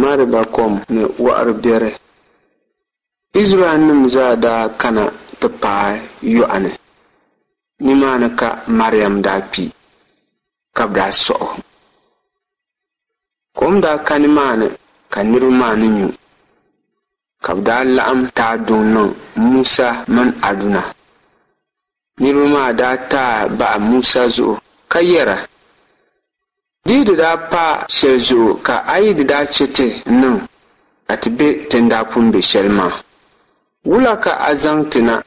Mɛriba kom ni wɔɣiri biɛri. Izraɛlnim zaa daa kana ti paai yɔɣu ni. Nimaani ka Mariam daa kpi, ka bɛ daa sɔɣ o. Kom daa ka nimaani ka niriba maa ni nyu, ka bɛ daa laɣim taai duŋ niŋ Musa mini Aduna. Niriba maa daa taai bahi Musa zuɣu ka yɛra, Di yi di daa pa shɛli zuɣu ka a yi di daa chɛ ti niŋ ka ti be ti ni daa pun be shɛli maa, wula ka a zaŋ ti na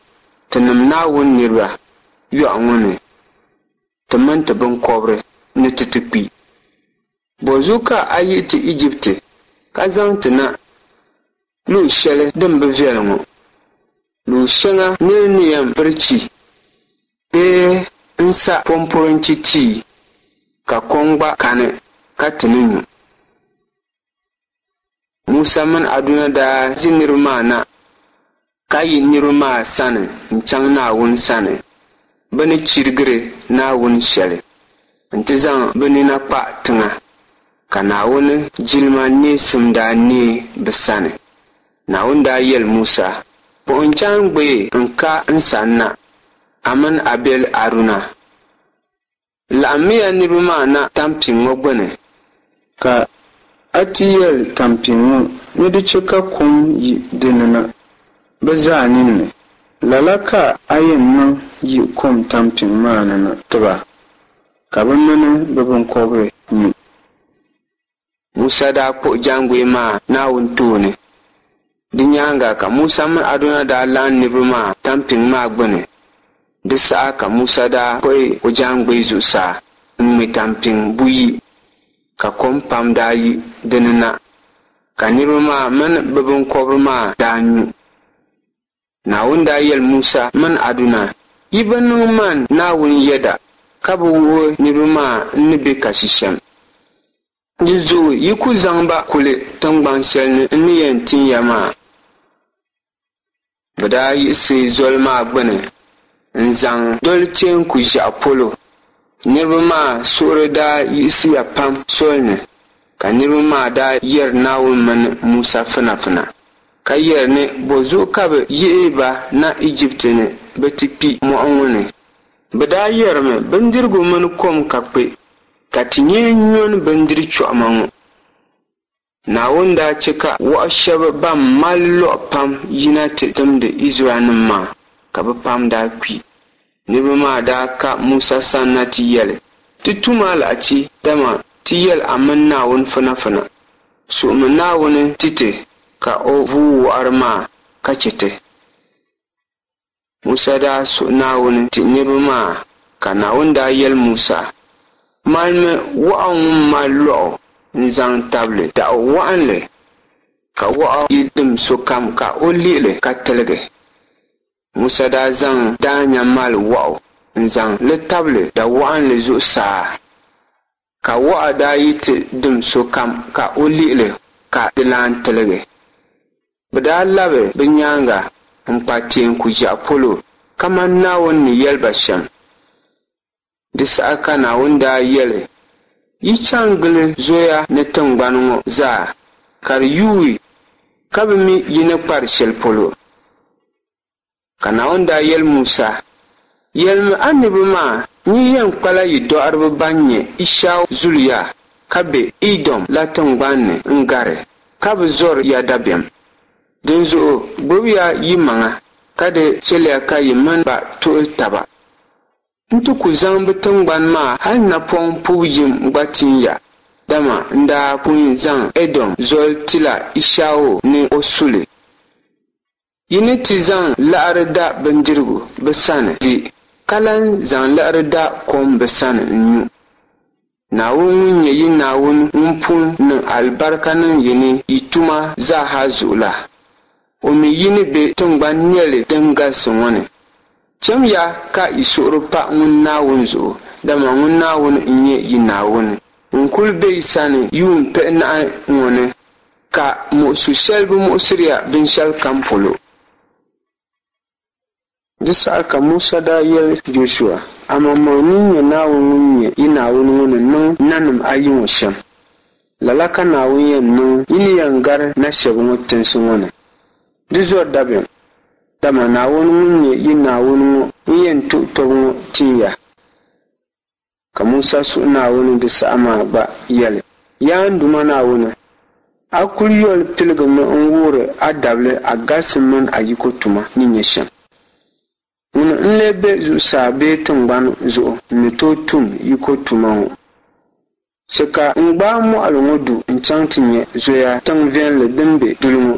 tinim Naawuni niriba yɔɣu ŋɔ ni ti mini ti biŋkɔbiri ni ti ti kpi? Bɔzuɣu ka a yihi ti Ijipti ka zaŋ ti na luɣ shɛli din bi viɛli ŋɔ, luɣ shɛŋa nir ni yɛn biri chi bee n-sa pɔmpɔrinchi tia, ka kom gba kani ka ti ni nyu? Musa mini Aduna daa ʒi niriba maa na ka yi niriba maa sani n-chaŋ Naawuni sani bɛ ni chirigiri Naawuni shɛli nti zaŋ bɛ nina kpa tiŋa, ka Naawuni jilima neesim daa neei bɛ sani. Naawuni daa yɛli Musa, Kpuɣi n jaaŋgbee n-ka n sanna, a mini a biɛli Aduna. Laɣimmiya niriba maa na tampiŋ ŋɔ gbini. Ka a ti yɛli tampiŋ ŋɔ ni di chɛ ka kom yi di ni na bɛ zaa ninni. Lala ka a yɛn niŋ yi kom tampiŋ maa ni na ti ba, ka bɛ mini bɛ biŋkɔbiri nyu. Musa daa kpuɣi jaaŋgbee maa Naawuni tooni. Di nyaaŋa ka Musa mini Aduna daa laɣim niriba maa tampiŋ maa gbini. Di saha ka Musa daa kpuɣi o jaaŋgbee zuɣusaa n-ŋme tampiŋ buyi, ka kom pam daa yi di ni na, ka niriba maa mini bɛ biŋkɔbiri maa daa nyu. Naawuni daa yɛli Musa mini Aduna, Yi bi niŋ man Naawuni yɛda, ka bi wuhi niriba maa n ni be kasi shɛm. Dinzuɣu yi ku zaŋ ba kuli tiŋgban shɛli ni n ni yɛn tin ya maa. Bɛ daa yiɣisi zoli maa gbini n-zaŋ doli Teeku Ʒiɛɣu polo. Niriba maa suhuri daa yiɣisiya pam sol ni, ka niriba maa daa yɛri Naawuni mini Musa finafina, ka yɛri ni bɔzuɣu ka bɛ yihi ba na Ijipti ni bɛ ti kpi mɔɣu ŋɔ ni. Bɛ daa yɛrimi, Bindirigu mini kom ka kpe, ka ti nyee nyoni bindiri chɔɣima ŋɔ. Naawuni daa chɛ ka wɔɣ shɛb bɛn mali lɔɣu pam yina ti timdi Izraɛlnim maa, ka bɛ pam daa kpi. Niriba maa daa ka Musa sanna ti yɛli, Ti tum alahichi, dama ti yɛl a mini Naawuni finafina. Suhimi Naawuni ti ti ka o vuui wɔɣiri maa ka chɛ ti. Musa daa suhi Naawuni ti niriba maa, ka Naawuni daa yɛli Musa, Malimi wɔɣu ŋun mali lɔɣu n-zaŋ tabili daɣu wɔɣinli, ka wɔɣu yi dim sokam ka o lihi li ka tiligi. Musa daa zaŋ daanya mali wɔɣu n-zaŋ li tabili da wɔɣinli zuɣusaa, ka wɔɣu daa yi ti dim sokam ka o lihi li ka di lan tiligi. Bɛ daa labi bɛ nyaaŋa n-kpa Teeku Ʒiɛɣu polo kaman Naawuni ni yɛli ba shɛm. Di saha ka Naawuni daa yɛli, Yi chaŋ gili zoya ni tiŋgbani ŋɔ zaa, ka di yuui ka bɛ mi yi ni kpari shɛli polo. Ka Naawuni daa yɛli Musa, Yɛlimi a niriba maa ni yi yɛn kpala yi dɔɣiriba ban nyɛ Ishau zuliya ka be Idom la tiŋgban ni n-gari, ka bi zɔri ya dabiɛm. Dinzuɣu gbibiya yimaŋa, ka di chɛliya ka yi mini ba tuhi taba. N ti ku zaŋ bɛ tiŋgbani maa hal napɔŋ pubu yim gba tin ya, dama n daa pun zaŋ Ɛdom zoli tila Ishau ni o su li. Yi ni ti zaŋ liɣiri da bindirigu bɛ sani di, ka lan zaŋ liɣiri da kom bɛ sani n-nyu. Naawuni ŋun nyɛ yi Naawuni ŋun pun niŋ alibarika niŋ yi ni yi tuma zaa ha zuɣu la, o mi yi ni be tiŋgban nɛli din galisi ŋɔ ni. Chamiya ka yi suhuri pa ŋun Naawuni zuɣu, dama ŋun Naawuni n-nyɛ yi Naawuni ŋun kul be yi sani yuun pihinahi ŋɔ ni, ka muɣisu shɛli bi muɣisiri ya binshɛlikam polo. Di saha ka Musa daa yɛli Jɔshua, Amaŋmaŋ nini nya Naawuni ŋun nyɛ yi Naawuni ŋɔ ni niŋ nanim ayi ŋɔ shɛm. Lala ka Naawuni yɛn niŋ yi ni yɛn gari na shɛba ŋɔ tinsi ŋɔ ni. Di zɔri dabiɛm, dama Naawuni ŋun nyɛ yi Naawuni ŋɔ n-yɛn tuhi tɔbu ŋɔ tin ya. Ka Musa suhi Naawuni di saha maa gba yɛli, Yaa n Duuma Naawuni, a kul yoli piligimi n-wuhiri a dabili a galisim mini a yiko tuma ni nyɛ shɛm. Ŋuni n-lee be zuɣusaa bee tiŋgbani zuɣu n-ni tooi tum yiko tuma ŋɔ? Chɛ ka n gbaai mɔɣili ŋɔ du n-chaŋ ti nya zoya tiŋ viɛlli din be duli ŋɔ.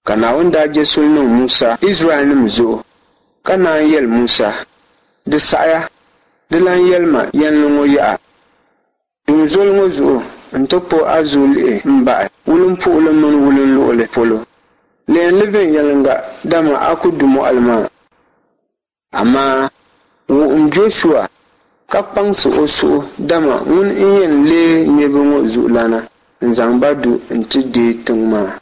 Ka Naawuni daa je suli niŋ Musa Izraɛlnim zuɣu, ka naan yɛli Musa, Di saɣiya, di lan yɛli ma yɛnli ŋɔ yaha. Dum zoli ŋɔ zuɣu nti kpuɣ a zuɣu lihi m-bahi wulimpuhili mini wulinluɣili polo. Lihim li viɛnyɛliŋga, dama a ku du mɔɣili maa. Amaa wuhim Jɔshua ka kpaŋsi o suhu, dama ŋuni n-yɛn leei niriba ŋɔ zuɣulana n-zaŋ ba du nti deei tiŋ maa.